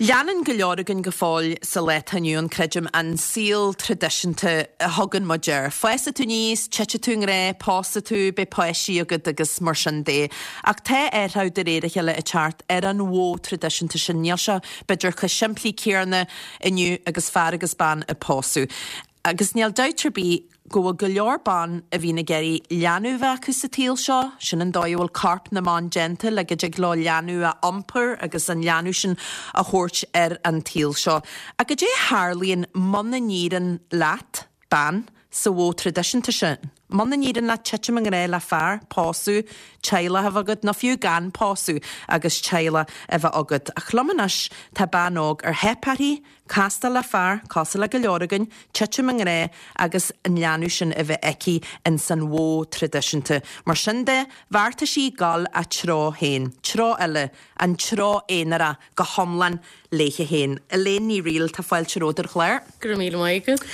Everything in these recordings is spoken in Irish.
Leanann go leor againn go fóill sa lá atá inniu ann, creidim, an saol traidisiúnta a thugann muid air. Fásfaidh tú aníos, titfidh tú i ngrá, pósfaidh tú, beidh páistí agat agus mar sin de. Ach tá athrú de réir a chéile ag teacht ar an mhodh traidisiúnta sin. Níl sé, b'fhéidir, chomh simplí céanna inniu agus fear agus bean ag pósadh. Agus níl dabht ar bith go bhfuil go leor ban a bhíonn ag iarraidh leanbh a bheith acu sa tsaol seo, sin an dóigh a bhfuil corp na mban déanta, le go dtig leo leanbh a iompar agus an leanbh sin a thabhairt ar an tsaol seo. Ach goidé a tharlaíonn muna n-éiríonn leat, bean, sa mhodh traidisiúnta sin? Muna n-éiríonn leat titim i ngrá le fear, pósadh, teaghlach a bheith agat, nó fiú gan pósadh agus teaghlach a bheith agat. Ach liom anois tá bean óg ar theip uirthi, Castáil le fear, cosúil le go leor againn, titim i ngrá agus an leanbh sin a bheith aici ins an mhodh traidisiúnta. Mar sin de, bheartaigh sí dul a treo féin, treo eile, an treo aonarach go hiomlán léithe féin. Elaine Ní Fhrighil, tá fáilte romhat ar an chlár. Go raibh míle maith agat.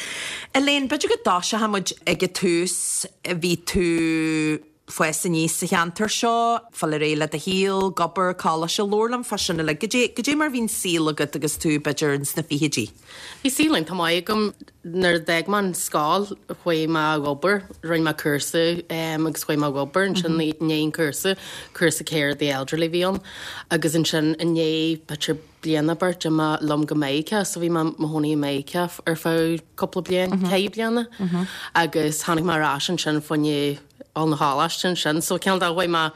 Elaine, b'fhéidir go dtoiseoidh muid ag an tús, bhí tú fás aníos sa cheantar seo, fáil ar aghaidh le do shaol, ag obair, coláiste, labhair liom fá sin uilig. Goidé, goidé mar bhí an saol agat agus tú, b'fhéidir, ins na fichidí? Bhí saol iontach maith agam. Nuair a d'fhág mé an scoil, chuaigh mé ag obair, rinne mé cúrsa agus chuaigh mé ag obair ansin i ndiaidh an cúrsa, cúrsa care of the elderly a bhí ann, agus ansin i ndiaidh b'fhéidir bliain nó beirt d'imigh mé liom go Meiriceá so bhí mé i mo chónaí i Meiriceá ar feadh cúpla bliain, ceithre bliana agus tháinig mé ar ais ansin fá choinne dul 'na choláiste ansin so cineál de chuaigh mé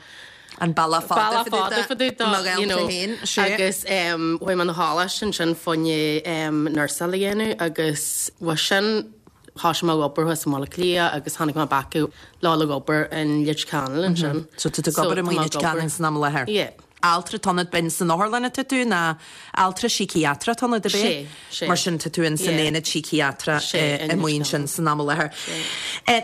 An bealach fada bealach fada fá dtaobh de you know agus chuaigh mé 'na choláiste ansin fá choinne nursáil a dhéanamh agus uaidh sin thosaigh mé ag obair thuas i mBaile Átha Cliath agus tháinig mé back le dhul ag obair in Leitir Ceanainn ansin. So tá tú ag obair i Leitir Ceanainn san am i láthair? Yeah. Altra atá ionat, b'in san otharlann atá tú nó altra síciatrach atá ionat, ab é? Sé, sé. Mar sin tá tú in san aonad síciatrach amuigh ansin san am i láthair.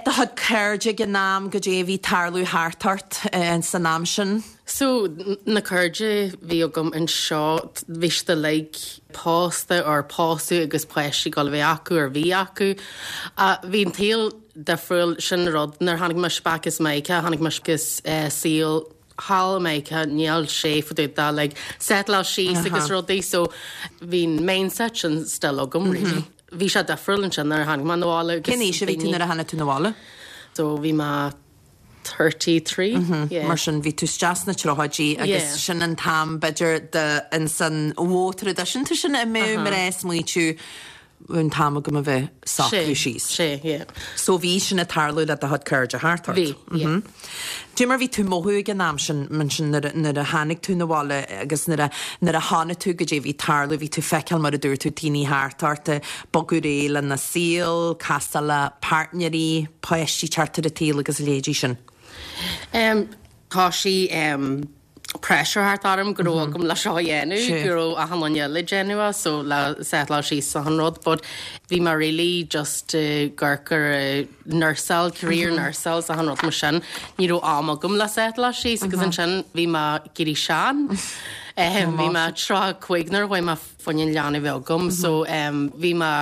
Do chuid cairde ag an am, goidé a bhí ag tarlú thart ort san am sin? So, na cairde bhí agam anseo, bhí siad uilig pósta or pósadh agus páistí ag dul a bheith acu or bhí acu. Bhí an tsaol difriúil, sin an rud, nuair a tháinig mise back as Meiriceá, tháinig mise agus saol thall i Meiriceá níl sé fá dtaobh de like settleáil síos agus rudaí so bhí an mindset sin still agam really. Bhí sé difriúil ansin nuair a tháinig mé 'na bhaile agus Cén aois a bhí tú nuair a tháinig tú 'na bhaile? So bhí mé 33, yeah. Mar sin bhí tú isteach sna tríochaidí agus sin an t-am b'fhéidir de ins an mhodh traidisiúnta sin a mbeadh mná ag smaoitiú an t-am agam a bheith socrú síos. Sé, yeah. So bhí sin ag tarlú le do chuid cairde thart ort? Bhí, yeah. Dé mar bhí tú mothú ag an am sin, mar sin nuair a, nuair a tháinig tú 'na bhaile agus nuair a, nuair a chonaic tú goidé bhí ag tarlú, bhí tú feiceáil mar a dúirt tú daoine thart ort ag bogadh ar aghaidh lena saol, castáil le páirtnéirí, páistí teacht ar an tsaol agus a leithéidí sin. Em, tá sí, em, pressure thart orm go raibh agam le seo a dhéanamh, go raibh achan duine eile ag déanamh é so le settleáil síos achan rud but bhí mé really just ag amharc ar nursáil, career nursáil is achan rud mar sin. Ní raibh am agam le settleáil síos agus ansin bhí mé ag éirí sean. Bhí mé 35 nuair a chuaigh mé fá choinne an leanbh a bheith agam so bhí mé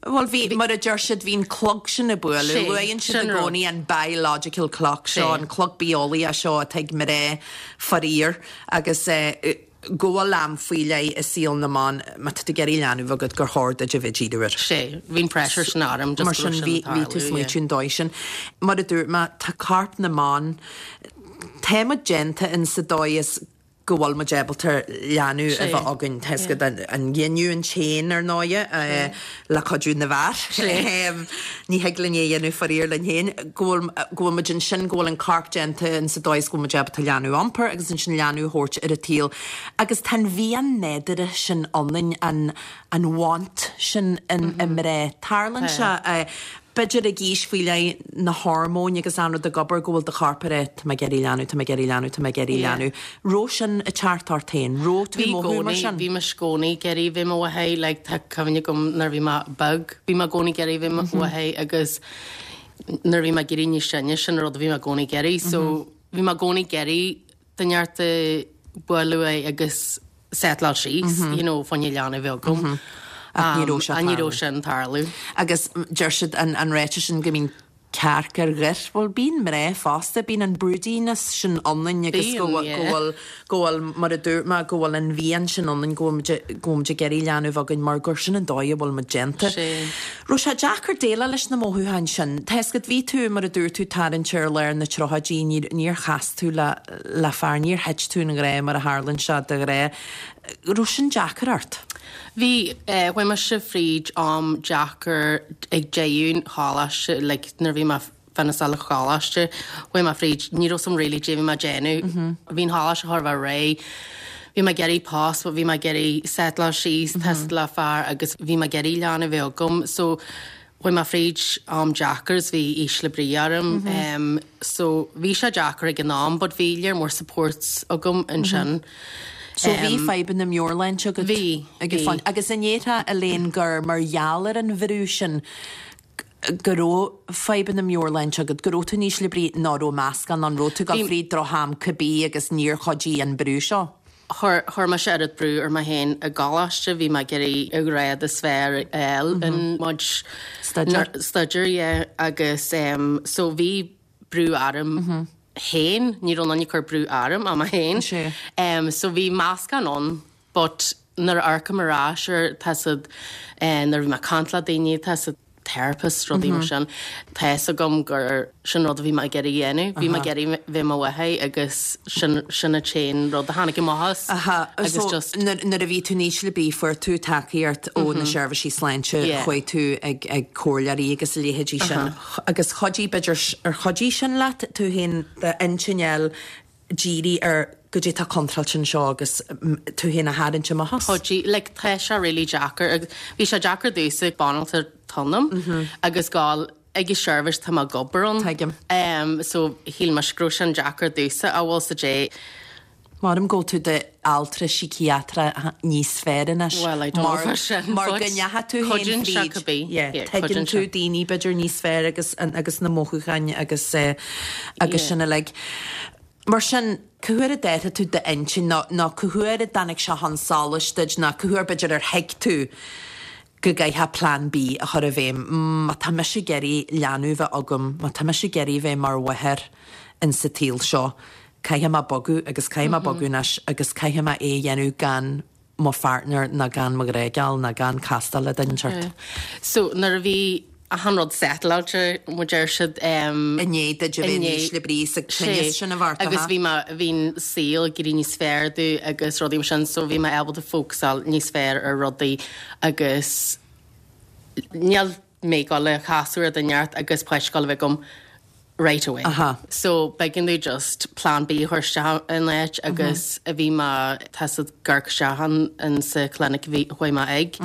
Bhuel, bhí, mar a deir siad, bhí an clog sin ag bualadh. Luann siad i gcónaí an biological clock seo, an clog bitheolaíoch seo atá ag mná, faraor, agus go bhfuil am faoi leith i saol na mban, má tá tú ag iarraidh leanbh agat, gur chóir duit a bheith ag díriú air. Sé, bhí an pressure sin orm just go raibh sin ag tarlú. Mar sin, bhí tú ag smaoitiú an dóigh sin. Mar a dúirt mé, tá corp na mban, tá muid déanta in sa dóigh is go bhfuil muid ábalta leanbh a bheith againn. Tá 'fhios agat an ghiniúint féin, ar ndóighe, le cuidiú na bhfear. Ní thig linn é a dhéanamh faraor linn féin. Go bhfuil, go bhfuil muid ansin, go bhfuil an corp déanta in sa dóigh is go bhfuil muid ábalta leanbh a iompar agus ansin leanbh a thabhairt ar an tsaol. Agus tá an mhian nádúrtha sin ionainn, an, an want sin i mná. Tarlaíonn sé. B'fhéidir ag aois faoi leith, na hormóin agus an rud ag obair, go bhfuil do chorp ag rá, tá mé ag iarraidh leanbh, tá mé ag iarraidh leanbh, tá mé ag iarraidh leanbh. Raibh sin ag teacht ort féin? Raibh tú ag mothú mar sin? Bhí mise i gcónaí ag iarraidh bheith i mo mháthair, like tá cuimhne agam nuair a bhí mé beag, bhí mé i gcónaí ag iarraidh bheith i mo mháthair agus nuair a bhí mé ag éirí níos sine, sin an rud a bhí mé i gcónaí ag iarraidh. So bhí mé i gcónaí ag iarraidh duine inteacht a bualadh uaidh agus settleáil síos, you know, fá choinne leanbh a bheith agam. Ach ní raibh sé Ní raibh sin ag tarlú. Agus deir siad an ráiteas sin go mbíonn. Cearc ar ghoir. Bhuel, bíonn mná fosta, bíonn an broodiness sin ionainn agus go bhfuil, go bhfuil, go bhfuil, mar a dúirt mé, go bhfuil an mhian sin ionainn go bhfuil muid, go bhfuil muid ag iarraidh leanbh againn mar gur sin an dóigh a bhfuil muid déanta. Raibh sé deacair déileáil leis na mothúcháin sin? Tá 'fhios agat, bhí tú, mar a dúirt tú, tarraingthe ar lár na tríochaidí, níor, níor chas tú le, le fear, níor thit tú i ngrá mar a tharlaíonn sé de ghnáth. Raibh sin deacair ort? Bhí, chuaigh mise fríd am deacair ag deireadh an choláiste, like nuair a bhí mé finisheáil an choláiste, chuaigh mé fríd, ní raibh 's a'm really caidé bhí mé ag déanamh. Bhí an choláiste chóir a bheith réidh, bhí mé ag iarraidh post but bhí mé ag iarraidh settleáil síos, tá 's agat le fear agus bhí mé ag iarraidh leanbh a bheith agam so chuaigh mé fríd am deacair is bhí ísle brí orm so bhí sé deacair ag an am but bhí lear mór support agam ansin. So bhí fadhbanna meabhairshláinte agat? Bhí, bhí. Agus an ndéarfá Elaine gur mar gheall ar an bhrú sin go raibh fadhbanna meabhairshláinte agat, go raibh tú in ísle brí nó raibh meascán ann, raibh tú ag dul fríd droch-am cibé agus níor chuidigh an brú seo? Chuir, chuir mise oiread brú ar mé féin i gcoláiste, bhí mé ag iarraidh an grád is fearr a fháil in mo Staidéar. staidéar, yeah, agus em so bhí brú orm féin, ní raibh aon duine ag cur brú orm ach mé féin. Sea. Em so bhí meascán ann but nuair a amharcaim ar ais ar, tá 's agat, eh nuair a bhí mé ag caint le daoine, tá 's agat, therapist, rudaí mar sin. Tá fhios agam gur sin rud a bhí mé ag iarraidh a dhéanamh. Bhí mé ag iarraidh bheith i mo mháthair agus sin sin an t-aon rud a tháinig amach as. Aha, Agus so just. nuair nuair a bhí tú in ísle brí fuair tú tacaíocht ó na seirbhísí sláinte, Yeah. chuaigh tú ag ag comhairleoirí agus a leithéidí sin. Agus chuidigh b'fhéidir ar chuidigh sin leat tú féin d'intinn a fháil díriú ar goidé tá contráilte anseo agus tú féin a tharraingt amach as. Chuidigh, like tá sé really deacair agus bhí sé deacair domhsa banaltra ionam agus gabháil ag an seirbhís tá mé ag obair ann. Tuigim. Um, so shíl mise go raibh sin deacair domhsa a bhfuil sa dé. Maram go bhfuil tú d'altra síciatrach níos fearr anois. Well, I don't know fá sin, Mar go ndeachaigh tú féin cuidíonn sé fríd. cibé. Yeah, Yeah, tuigeann cuidíonn tú sé. daoine b'fhéidir níos fearr agus agus na mothúcháin agus eh, agus Yeah. sin uilig. Mar sin, cá huair a d'athraigh tú d'intinn nó nó cá huair a dtáinig sé chun solais duit nó cá huair b'fhéidir ar thuig tú go gcaithfeá Plean B a chur i bhfeidhm, má tá mise ag iarraidh leanbh bheith agam, má tá mise ag iarraidh bheith mar mháthair in sa tsaol seo, caithfidh mé bogadh agus caithfidh mé bogadh anois agus caithfidh mé é a dhéanamh gan mo pháirtneir ná gan mo ghrágeal ná gan castáil le duine inteacht. So nuair a bhí achan rud settleáilte, mar a deir siad, I ndiaidh duit a bheith in ísle brí sa tinneas sin a bheart, Agus bhí mé, bhí an saol ag éirí níos fearr domh agus rudaí mar sin so bhí mé ábalta fócasáil níos fearr ar rudaí agus níl mé ag dul a chasadh ar duine inteacht agus páiste ag dul a bheith agam right away. Aha. So b'éigean domh just plan B a chur isteach in áit agus a bhí mé tá 's agat ag amharc isteach an in sa clinic a bhí chuaigh mé ag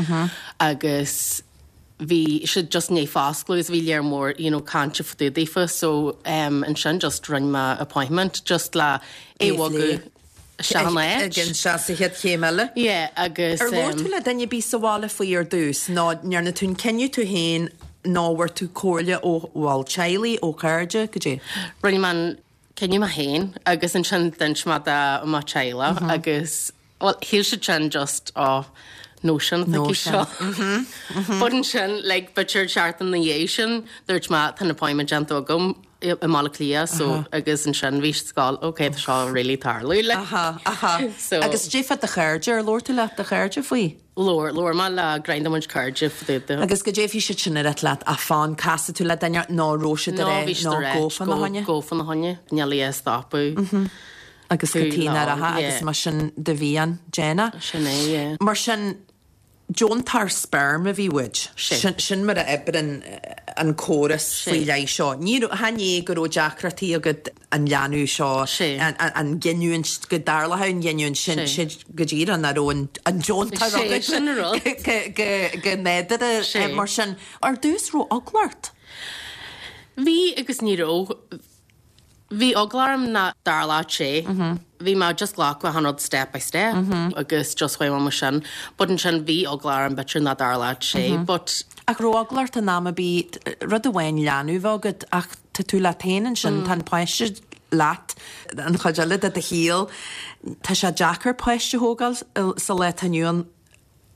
agus bhí siad just i ndiaidh foscladh agus bhí lear mór you know cainte fá dtaobh daofa so um ansin just rinne mé appointment just le é a bhogadh isteach in áit. Ag an sea sa chéad chéim eile. Yeah agus Ar labhair tú le duine ar bith sa bhaile faoi ar dtús nó ndearna tú an cinneadh tú féin nó bhfuair tú comhairle ó bhaill teaghlaigh, ó chairde, goidé? Rinne mé an cinneadh mé féin agus ansin d'inis mé do mo teaghlach agus bhuel shíl siad sin just oh notion atá aici seo. But ansin like b'fhéidir seachtain ina dhiaidh sin dúirt mé tá an appointment déanta agam i mBaile Átha Cliath so agus ansin bhí siad ag gabháil ok tá seo really tarlú like. Aha, aha. So. Agus goidé fá do chairde, ar labhair tú le do chairde faoi? Labhair, labhair mé le roinnt de mo chuid cairde fá dtaobh de. Agus goidé bhí siad sin ag ráit leat, ah fan, casfaidh tú le duine nó raibh siad No, ag rá bhí siad nó ag rá gabh fána choinne? gabh fána choinne, níl í a stopadh. Agus Tú go tí lán, nach raibh yeah. agus mar sin do mhian, déan é. Sin é, yeah. Mar sin, Deontóir speirm a bhí uait. Sin. Sin mar a oibreann an córas faoi leith seo. Ní raibh, chan é go raibh deacrachtaí agat an leanbh seo, an ghiniúint, go dtarlódh an ghiniúint sin, sin go díreach nach raibh an deontóir agat. Sin an rud. Go nádúrtha mar sin. Ar dtús raibh eagla ort? Bhí agus ní raibh. Bhí eagla orm nach dtarlódh sé. Bhí mé just glacadh achan rud step by step agus just chuaigh mé mar sin. But ansin bhí eagla orm b'fhéidir nach dtarlódh sé but. Ach raibh eagla ort in am ar bith, rud amháin leanbh a bheith agat ach tá tú leat féin ansin, tá an páiste leat an chuid eile de do shaol. Tá sé deacair páiste a thógáil sa lá atá inniu ann.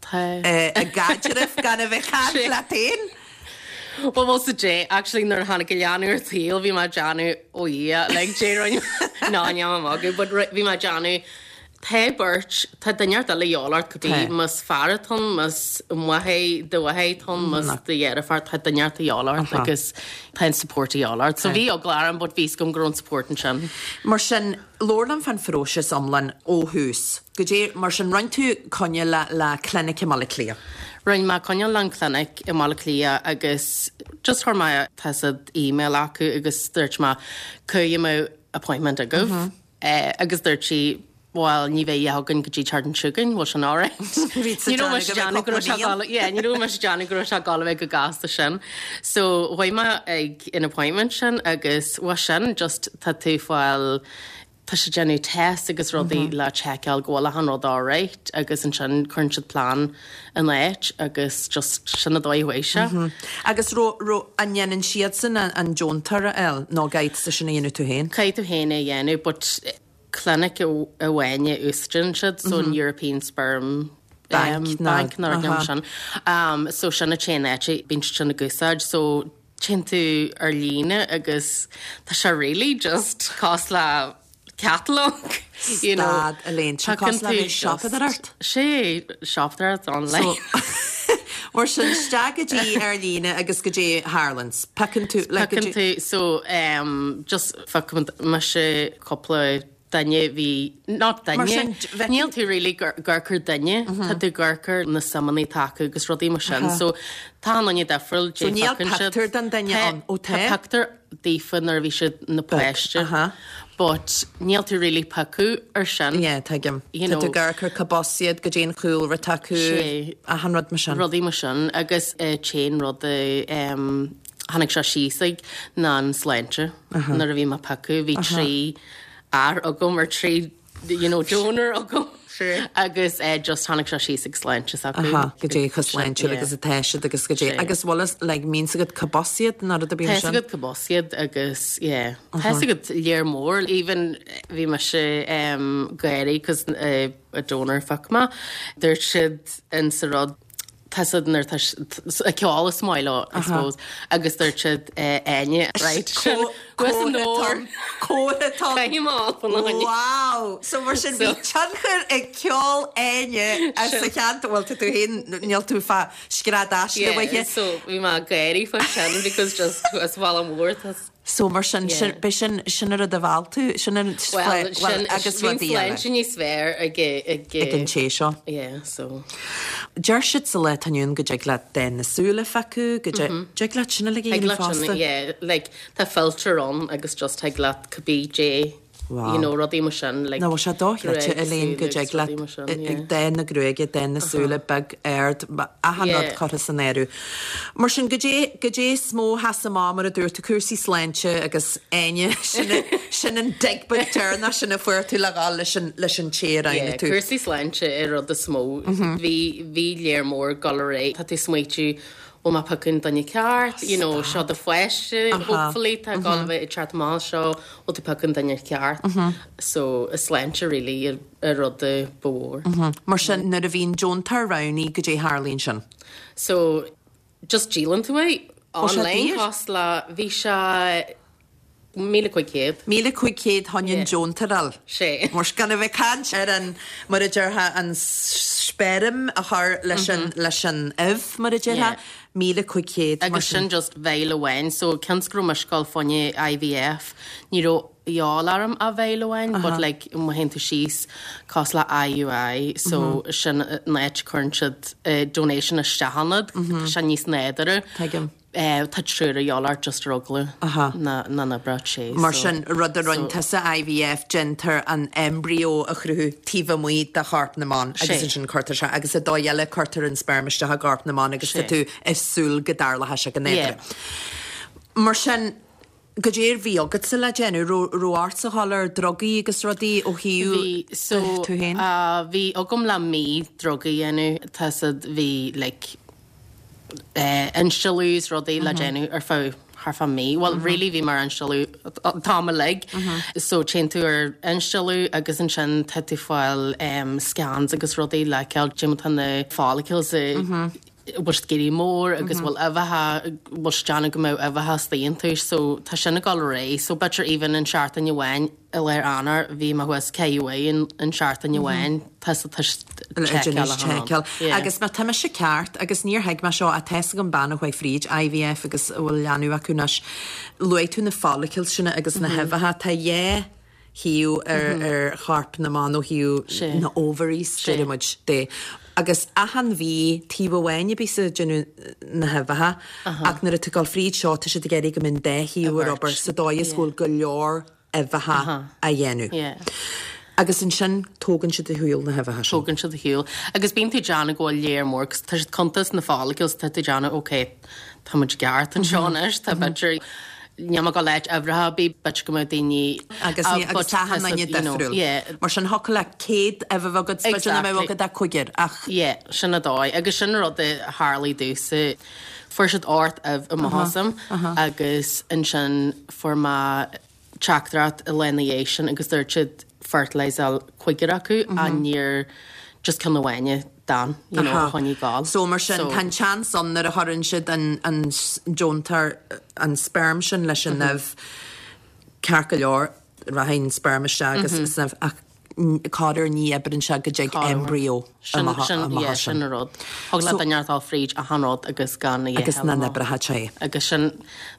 Tá. I gcaidreamh gan a bheith ag caint leat féin. Well bhfuil sa dé actually nuair a tháinig an leanbh ar an tsaol bhí mé ag déanamh oh yeah like dé rinne ná ní am magadh but bhí mé ag déanamh tá beirt tá duine inteacht eile a dhíobháil ort cibé más fear atá ann más máthair do mháthair atá ann más do dheirfiúr tá duine inteacht a dhíobháil ort agus tá an support a dhíobháil ort so bhí eagla orm but bhí 'fhios agam go raibh an support ansin. Mar sin labhair liom fán phróiseas iomlán ó thús. Goidé, mar sin, rinne tú coinne le, le clinic i mBaile Átha Cliath? Rinne mé coinne le an clinic i mBaile Átha Cliath agus just chuir mé tá 'fhios a'd email acu agus dúirt mé cá mbeadh appointment agaibh agus dúirt sí bhuel ní bheidh a dhath againn go dtí an tseachtain seo chugainn, bhfuil sin alright? Ní raibh mise ag déanamh go raibh sé ag dul, yeah, ní raibh mise ag déanamh go raibh sé ag dul a bheith chomh gasta sin. So chuaigh mé ag an appointment sin agus bhuel sin just tá tú ag fáil Tá siad ag déanamh test agus rudaí le tseiceáil go bhfuil achan rud alright agus ansin cuireann siad plean in áit agus just sin an dóigh a chuaigh sé. Agus raibh, raibh, an ndéanann siadsan an deontóir a fháil nó caithfidh tusa sin a dhéanamh tú féin? Caithfidh tú féin é a dhéanamh but clinic amháin a úsáideann siad so an European Sperm Bank Bank nó rud mar sin. So sin an t-aon áit a bíonn siad sin ag úsáid so Téann tú ar líne agus tá sé really just cosúil le catalog, you know. Stad, Elaine, tá cosúil le bheith siopadóireacht? Sé, siopadóireacht online. So, mar sin, isteach go dtí ar líne agus goidé a tharlaíonn. Piocann tú, like, Piocann tú, so, um, just phioc mise cúpla duine bhí, not duine, Mar sin, bheith- níl tú really ag amharc ar duine, tá tú ag amharc ar na suimeanna atá acu agus rudaí mar sin, so tá an duine difriúil, So níl pictiúr den duine ann, ó tá? Tá pictiúr daofa nuair a bhí siad ina páiste, but níl tú really piocadh ar sin. Yeah, tuigim. You know. Tá tú ag amharc ar cárb as iad, goidé an chúlra atá acu, achan rud mar sin. Rudaí mar sin agus an t-aon rud a tháinig sé síos ag ná an sláinte. Nuair a bhí mé ag piocadh, bhí 3 fhear agam or 3 you know donor agam agus just tháinig sé síos ag sláinte s'acu. Goidé chomh sláintiúil agus atá siad agus goidé agus bhfuil fhios like mbíonn 's agat cárb as iad nó rud ar bith mar sin? Tá 's agat cárb as iad agus yeah tá 's agat léar mór even bhí mise ag gáirí cos a donor a phioc mé dúirt siad in sa rud Tá siad nuair tá a ceol is maith leo, I suppose, agus dúirt siad Áine, right, sin Comhartha Wow! So mar sin bhí tionchar ag ceol Áine sa cheantar, bhuel tá tú féin, níl tú fá scread aisle uaithe. Yeah, so bhí mé ag gáirí faoi sin because just as Bhaile Mór tá So mar sin, sin, b'é sin, sin an rud a mheall tú, sin an, Well, sin, agus bhí an rudaí eile. sláinte níos fearr ag, ag, Ag an té seo. Yeah, so. Deir siad sa lá atá inniu ann go dtig leat dath na súl a phiocadh, go dtig, dtig leat sin uilig a Thig dhéanamh leat sin, fosta. yeah, like, tá filter ann agus just thig leat cibé dé Wow. You know, rudaí mar sin, like, Nó bhfuil sé dochreidte, gruaig, Elaine, go súile dtig agus leat rudaí mar sin, yeah. dath na gruaige, dath na súile, beag, ard, achan rud Yeah. curtha san áireamh. Mar sin, goidé, goidé is mó a sheas amach mar a dúirt tú, cúrsaí sláinte agus Áine, sin, sin an dig beag deireanach sin a fuair tú le dhul leis an, leis an té a roghnaigh Yeah, tú. cúrsaí sláinte an rud is mó. Bhí, bhí léar mór ag dul ar aghaidh. Tá tú ag smaoitiú, bhfuil mé ag piocadh an duine ceart, you know, seo do pháiste, hopefully, tá ag dul a bheith ag teacht amach seo, bhfuil tú ag piocadh an duine ceart. So, an sláinte really an rud ba mhór. Mar sin, nuair a bhíonn deontóir roghnaithe, goidé a tharlaíonn sin? So, just díolann tú é online cosúil le, bhí sé 1,500. 1,500 chun an deontóir a fháil. Sé. Mar gan a bheith ag caint ar an, mar a déarfá, an speirm a chur leis an, leis an ubh, mar a déarfá. 1,500 mar Agus sin just vial amháin, so cionn is go raibh mise ag dul fá choinne IVF, ní raibh dhíobháil orm ach vial amháin, but like má théann tú síos cosúil le IUI, so sin an áit a cuireann siad donation isteach ionat, tá sé níos nádúrtha. Tuigim. Tá triúr a dhíobháil ort just ar eagla na n-oibreodh sé. Mar sin, rud a rinne tusa, IVF, déantar an embryo a chruthú taobh amuigh de chorp na mban agus ansin cuirtear sé, agus sa dóigh eile cuirtear an sperm isteach i gcorp na mban agus tá tú ag súil go dtarlóidh sé go nádúrtha. Mar sin, goidé a bhí agatsa le déanamh? Raibh ortsa dhul ar drugaí agus rudaí ó thaobh Bhí, so, tú féin? bhí agam le mí drugaí a dhéanamh, tá 's a'd, bhí like, instealladh is rudaí le déanamh ar feadh thart fá mí. Bhuel really bhí mé ar instealladh an t-am uilig. So téann tú ar instealladh agus ansin tá tú ag fáil scans agus rudaí le feiceáil cad é mar tá na follicles ag. bhfuil siad ag éirí mór agus bhfuil uibheacha, bhfuil siad déanamh go mbeadh uibheacha istigh iontu so tá sin ag dul ar aghaidh. So b'fhéidir even an seachtain amháin i lár Eanáir bhí mé thuas ceithre uair in seachtain amháin tá sa tá seiceáil. Agus má tá mise ceart agus níor thuig mé seo ach tá's agam bean a chuaigh fríd IVF agus a bhfuil leanbh acu anois, luaigh tú na follicles sin agus na huibheacha, tá dhá thaobh ar chorp na mban ó thaobh na ovaries, deir muid, de. Agus achan mhí, taobh amháin a bíos ag déanamh na huibheacha ach nuair atá tú ag dul fríd seo tá siad ag iarraidh go mbeidh an dá thaobh ar obair sa dóigh is go bhfuil go leor uibheacha á dhéanamh. Agus ansin tógann siad ar shiúl na huibheacha sin. Tógann siad ar shiúl. Agus bíonn tú ag déanamh go bhfuil léar mór, 'cause tá siad ag cuntas na follicles, tá tú ag déanamh ok, tá muid i gceart anseo anois, tá b'fhéidir, níl mé ag dul áit uimhreacha ar bith, b'fhéidir go mbeadh daoine Agus ní, agus tá achan duine difriúil. Yeah. Mar sin thiocfadh le 100 uibhe a bheith agat, b'fhéidir nach mbeadh agat ach cúigear, ach. Yeah, sin an dóigh. Agus sin rud a tharlaigh domhsa. Fuair siad 8 ubh amach asam agus ansin fuair mé teachtaireacht an lá ina dhiaidh sin agus dúirt siad fertilizeáil cúigear acu ach níor just ceann amháin a d'fhan, you know, a choinnigh ag gabháil. So mar sin tá an seans ann nuair a chuireann siad an an deontóir an sperm sin leis an ubh ceart go leor rachaidh an sperm isteach agus san ubh ach corruair ní oibreann sé go dtig embryo amach as sin. Sin an rud. Thig le duine a dhul fríd achan rud agus gan a dhath Agus nach n-oibreoidh sé. Agus sin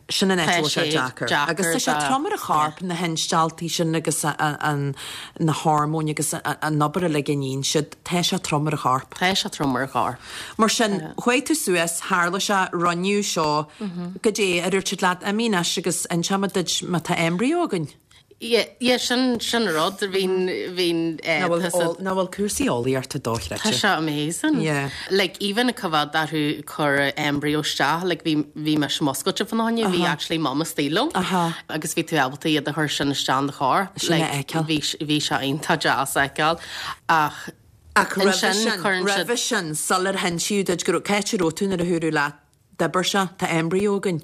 Sin an áit a bhfuil sé deacair. Agus tá sé trom ar an chorp, na hinstealltaí sin agus na hormóin agus an obair uilig a níonn siad, tá sé trom ar an chorp. Tá sé trom ar an chorp. Mar sin, chuaigh tú suas, tharla sé, rinneadh seo, goidé a dúirt siad leat, imigh anois agus inseoimid duit má tá embryo againn. Yeah, yeah, sin, sin an rud, bhí'n, bhí'n, eh, Nach bhfuil tá sa- nach bhfuil cúrsaí eolaíochta dochreidte? Tá sé amazing. Yeah. Like, even coimhéad orthu cur embryo isteach, like, bhí, bhí mise muscailte fá choinne, bhí actually mum istigh liom. Aha. Agus bhí tú ábalta iad a chur sin isteach in do chorp. Sin a Like, fheiceáil. bhí, bhí sé iontach deas a fheiceáil. Ach, Ach roimhe ansin sin, cuireann siad- roimhe sin, sular hinsíodh duit go raibh, cá háit a raibh tú nuair a dúradh leat D'oibir sé, tá embryo againn.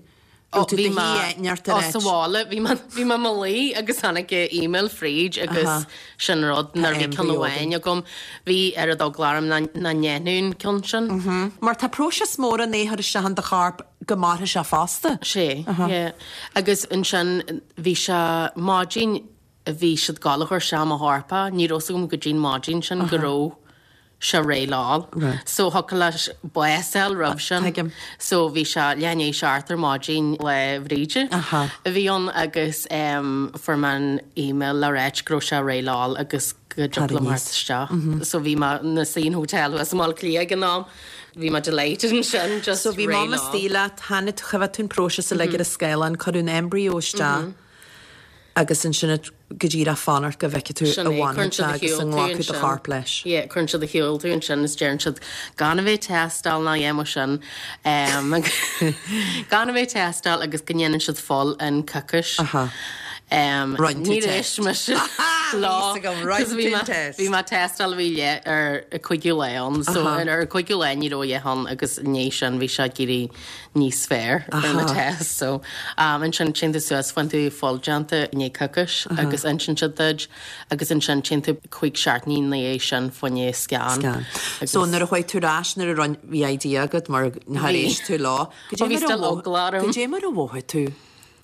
Ó, Raibh tú bhí do mé shuí neart ar ó, sa áit. bhaile, bhí mé, bhí mé i mo luí agus tháinig email fríd agus Aha. sin rud Tá nuair a bhí ceann embryo amháin againn. agam. Bhí oiread eagla orm nach ndéanfadh an ceann sin. Mar tá próiseas mór ann é a chur isteach in do chorp go mairfidh sé fosta. Sé, yeah. Agus ansin bhí sé maidin a bhí siad ag gabháil a chur isteach i mo chorp é, ní raibh 's agam go dtí'n maidin sin go raibh sé réidh le dhul. So thiocfadh leis bás a fháil roimh sin. Tuigim. So bhí sé leath i ndiaidh a seacht ar maidin Lá Bhríde Aha. a bhí ann agus em fuair mé an email le ráit go raibh sé réidh le dhul agus go dtiocfadh liom aníos. theacht isteach. So bhí mé ina suí in hotel thuas i mBaile Átha Cliath ag an am. Bhí mé delighted ansin just So bhí réidh mam le dhul. istigh leat, tháinig tú, choimhéad tú an próiseas uilig ar an scáileán, cuireadh an embryo isteach. Agus ansin go díreach fanacht go bhfeicfidh tú Sin an é, cuireann bhfanfaidh siad sé ar agus shiúl an tú nglacfaidh do ansin. chorp leis. Yeah, cuireann siad ar shiúl tú ansin is deireann siad gan a bheith ag tástáil ná a dhath mar sin. Gan a bheith ag tástáil agus go ndéanann siad fuil in coicís. Aha. Roinn tú Níor test. éist mise leo. Bhí fhios agam, roinn 'cause bhí tú mé- test. Bhí mé ag tástáil a bhí leith ar an cúigiú lá ann. So Aha. ar an cúigiú lá ní raibh a dhath ann agus i ndiaidh sin bhí sé ag éirí níos fearr ar na tests. So ansin téann tú suas, faigheann tú fuil déanta i ndiaidh coicís agus insíonn siad duit agus ansin téann tú cúig seachtainí ina dhiaidh sin fá choinne scan. Scan. So nuair a chuaigh tú ar ais, nuair a rinne, bhí idea agat mar nár éist tú leo. Bhí bhí still eagla orm. Goidé mar a mhothaigh tú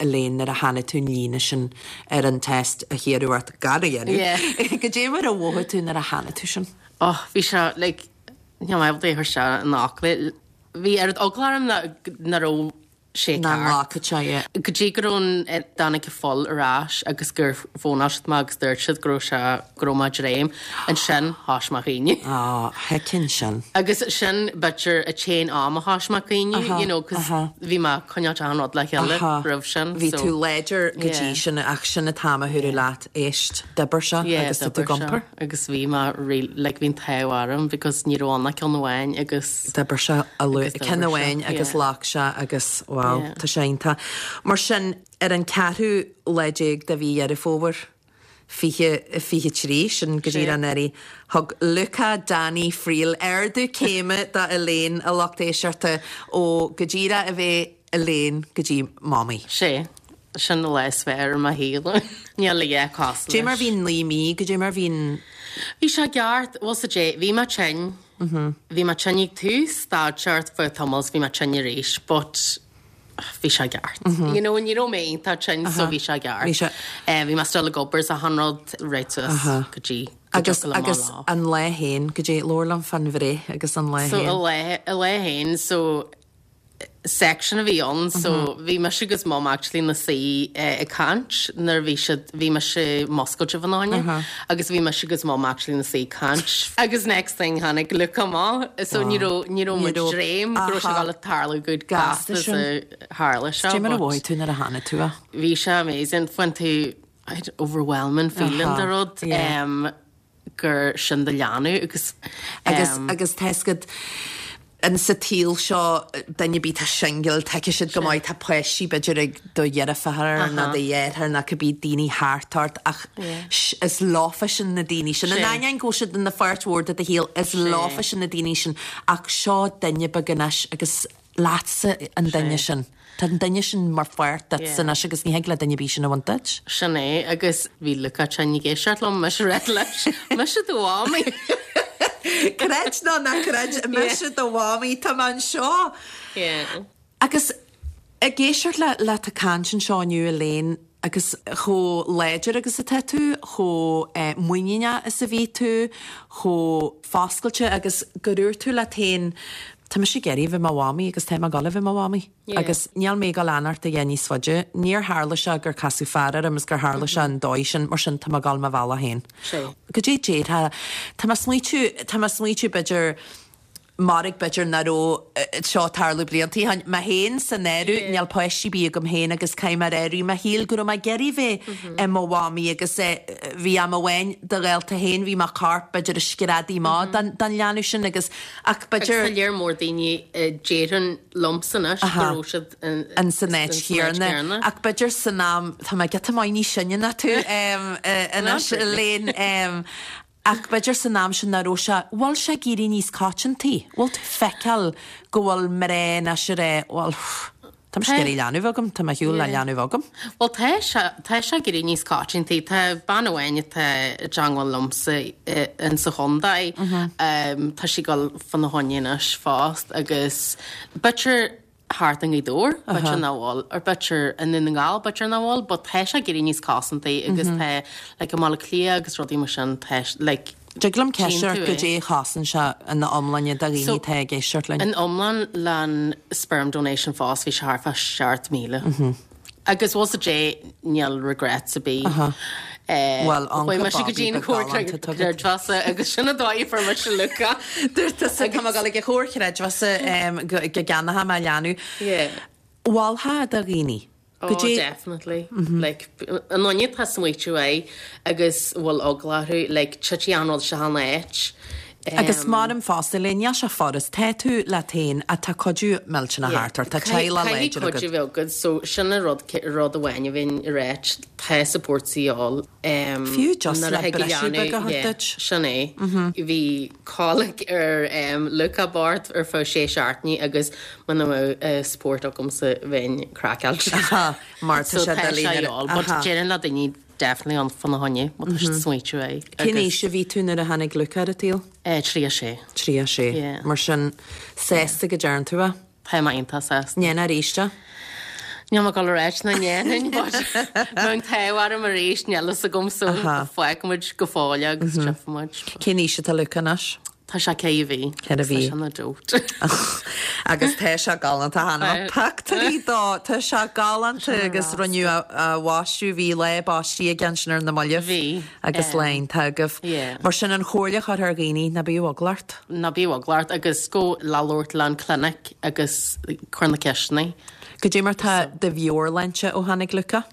Elaine nuair a chonaic tú an líne sin ar an test a hiarradh ort gan a dhéanamh. Yeah. Goidé mar a mhothaigh tú nuair a chonaic tú sin? Oh, bhí sé like, níl mé ábalta é a chur isteach in fhocla. Bhí oiread eagla orm nach raibh sé Nach ceart. nglacfadh sé é. Go dtí go raibh an, dtáinig an fuil ar ais agus gur fónáil siad mé agus dúirt siad go raibh sé, go raibh mé ag dréim. Ansin thoisigh mé a chaoineadh. Á, thuigfinn sin. Agus sin b'fhéidir an t-aon am a thoisigh mé a chaoineadh, you know, 'cause bhí mé ag coinneáil achan rud le chéile roimh sin. Bhí tú láidir go dtí sin ach sin an t-am a dúradh leat, éist, d'oibir sé agus tá tú ag iompar. Agus bhí mé real, like bhí an t-ádh orm because ní raibh ann ach ceann amháin agus. D'oibir sé a luath, ceann amháin agus ghlac sé agus wow, tá sé iontach. Mar sin, ar an ceathrú lá déag de mhí Dheireadh Fómhair, 2023, sin go díreach anuraidh, thug Luca Danny Friel ardú céime do Elaine, a lucht éisteachta, ó go díreach a bheith Elaine go dtí Mamaí. Sé, sin an lá is fearr i mo shaol. Níl a dhath cosúil Goidé mar bhí an 9 mí, goidé mar bhí an. Bhí sé ceart, bhuel sa dé, bhí mé tinn. Bhí mé tinn ag tús, stad sé ar feadh tamaill 's bhí mé tinn arís but bhí sé ceart. You know, ní raibh mé iontach tinn so bhí sé ceart. Bhí sé. Bhí mé still ag obair 's achan rud right suas go dtí go Agus dtiocfadh liom agus lá. an lá féin, goidé, labhair liom fán bhreith agus an lá So féin. a lá, a lá féin so section a bhí ann so bhí mise agus mum actually ina suí ag caint nuair a bhí siad, bhí mise muscailte fána choinne agus bhí mise agus mum actually ina suí ag caint agus next thing tháinig Luca amach so ní raibh, ní raibh muid ag dréim go raibh sé ag dul a tarlú chomh gasta is a tharla sé Cad é mar a mhothaigh tú nuair a tháinig tú a? Bhí sé amazing, fuair tú overwhelming feeling de rud. gur sin do leanbh agus. Agus, agus tá fhios agat, in sa tsaol seo, duine ar bith atá singil, tuigfidh siad go maith, tá páistí b'fhéidir ag do dheirfiúr nó do dheartháir nó cibé daoine thart ort ach is leofa sin na daoine sin. In ainneoin go bhfuil siad ina pháirt mhór de do shaol, is leofa sin na daoine sin ach seo duine beag anois agus leatsa an duine sin. Tá an duine sin mar pháirt duitse anois agus ní thig le duine ar bith sin a bhaint duit. Sin é, agus bhí Luca tinn ag éisteacht liom, mise ag ráit leis, mise do mhamaí! Creid nó ná creid, mise do mhamaí, tá mé anseo! Agus ag éisteacht leat ag caint anseo inniu Elaine, Agus chomh láidir agus atá tú, chomh muiníneach is a bhí tú, chomh foscailte agus gur dhúirt tú leat féin, tá mise ag iarraidh a bheith i mo mhamaí agus tá mé ag dul a bheith i mo mhamaí. Agus níl mé ag dul a fhanacht a dhath níos faide. Níor tharla sé gur casadh fear orm is gur tharla sé an dóigh sin, mar sin tá mé ag dul mo bhealach féin. Goidé déarfá, tá mé ag smaoitiú, tá mé ag smaoitiú b'fhéidir, Mairg b'fhéidir nach raibh seo ag tarlú blianta ó shin. Mé féin san áireamh, níl páistí ar bith agam féin agus caithfidh mé a rá i rith mo shaoil go raibh mé ag iarraidh bheith i mo mhamaí agus bhí am amháin do ghaolta féin, bhí mo chorp b'fhéidir ag screadaigh amach don leanbh sin agus ach b'fhéidir. Agus tá léar mór daoine a déarfainn liomsa anois go raibh siad in san áit chéanna. Ach b'fhéidir san am, tá mé giota maith níos sine ná tú anois Elaine, Ach b'fhéidir san am sin nach raibh sé, bhfuil sé ag éirí níos coitianta? Bhfuil tú ag feiceáil go bhfuil mná anois ag rá, bhuel, tá mise ag iarraidh leanbh agam, tá mé ar shiúl le leanbh agam. Bhuel tá sé, tá sé ag éirí níos coitianta. Tá bean amháin atá i dteangmháil liomsa in sa chontae, tá sí ag dul fána choinne anois fosta agus b'fhéidir, thart i nGaoth Dobhair, b'fhéidir nach bhfuil, or b'fhéidir i nDún na nGall, b'fhéidir nach bhfuil, but tá sé ag éirí níos cosanta agus tá, like, i mBaile Átha Cliath agus rudaí mar sin, tá, like, Dtig liom ceist ort goidé a chosain sé ina iomláine do dhaoine atá ag éisteacht linn. In iomlán le sperm donation fós bhí sé thart fá 7,000. Agus bhfuil 's a'd níl regrets ar bith. Bhuel, Chuaigh mise go dtí an chomhar creidmheasa agus sin an dóigh a fuair mise Luca. Dúirt tusa tá mé ag dul ag an chomhar chreidmheasa go gceannóidh mé leanbh. Mholfá do dhaoine. Oh, definitely. Like, an duine atá ag smaoitiú air agus bhfuil eagla orthu, like, titfidh an rud seo in áit. Agus maram fosta le níl sé furast, tá tú leat féin ach tá cuidiú millteanach thart ort, tá teaghlach láidir agat. Caithfidh cuidiú bheith agat, so sin an rud, rud amháin a bheinn ag ráit, tá support a dhíobháil. Fiú just le briseadh beag a thabhairt duit. Sin é. Bhí colic ar Luca bocht ar feadh sé seachtainí agus muna mbeadh support agamsa bheinn craiceáilte. Mar tá sé doiligh nuair a. But déarfainn le daoine Definitely ann fána choinne, má tá siad ag smaoitiú air. Cén aois a bhí tú nuair a tháinig Luca ar an tsaol? 36. 36. Yeah. Mar sin, sásta go dtearn tú é? Tá mé iontach sásta. Ndéanfá arís é? Níl mé ag dul a ráit nach ndéanfainn, but bheadh an t-ádh orm arís, níl fhios agam, so fágfaidh muid go fóill é agus tchífidh muid. Cén aois atá Luca anois? Tá sé 4 mhí. 4 mhí. Tá sé ina doat. Agus tá sé galánta chonaic mé pictiúirí dó. Tá sé galánta agus rinneadh a bhaisteadh, bhí lá baistí aige ansin ar na mallaibh. Bhí. Agus lá iontach agaibh. Mar sin an chomhairle a chuirfeá ar dhaoine, ná bíodh eagla ort. Ná bíodh eagla ort agus gabh le labhairt le an clinic agus cuir na ceisteanna. Goidé mar tá do mheabhairshláinte ó tháinig Luca?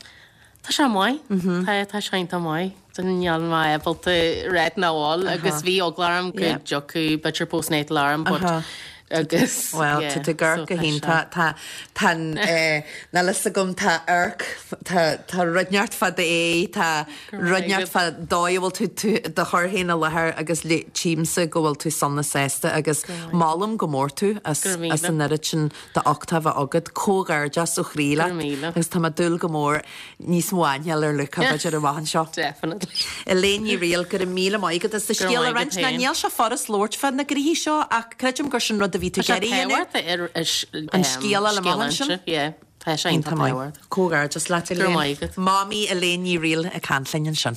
Tá sé maith. Tá, tá sé iontach maith. Níl mé ábalta ráit nach bhfuil agus bhí eagla orm go dtiocfadh b'fhéidir postnatal orm but. Agus, Bhuel, tá tú ag amharc go hiontach. Tá, tá an, eh, níl fhios agam, tá amharc, tá, tá rud inteacht fá d'aghaidh, tá rud inteacht fá dóigh a bhfuil tú, tú, do chur féin i láthair agus le, tchímse go bhfuil tú sona sásta agus molaim go mór tú as, as an oiread sin d'uchtach a bheith agat. Comhghairdeas ó chroí leat. Agus tá mé ag dúil go mór níos mó aithne a fháil ar Luca b'fhéidir amach anseo. Definitely. Elaine Ní Fhrighil, go raibh míle maith agat as do scéal a roinnt. Ná níl sé furast labhairt fá na gnoithí seo ach creidim gur sin rud a bhí tú ag iarraidh a dhéanamh. An scéal a fháil amach ansin. Yeah, tá sé iontach tábhachtach. Comhghairdeas leat Elaine. Go raibh maith agat. Mamaí Elaine Ní Fhrighil ag caint linn ansin.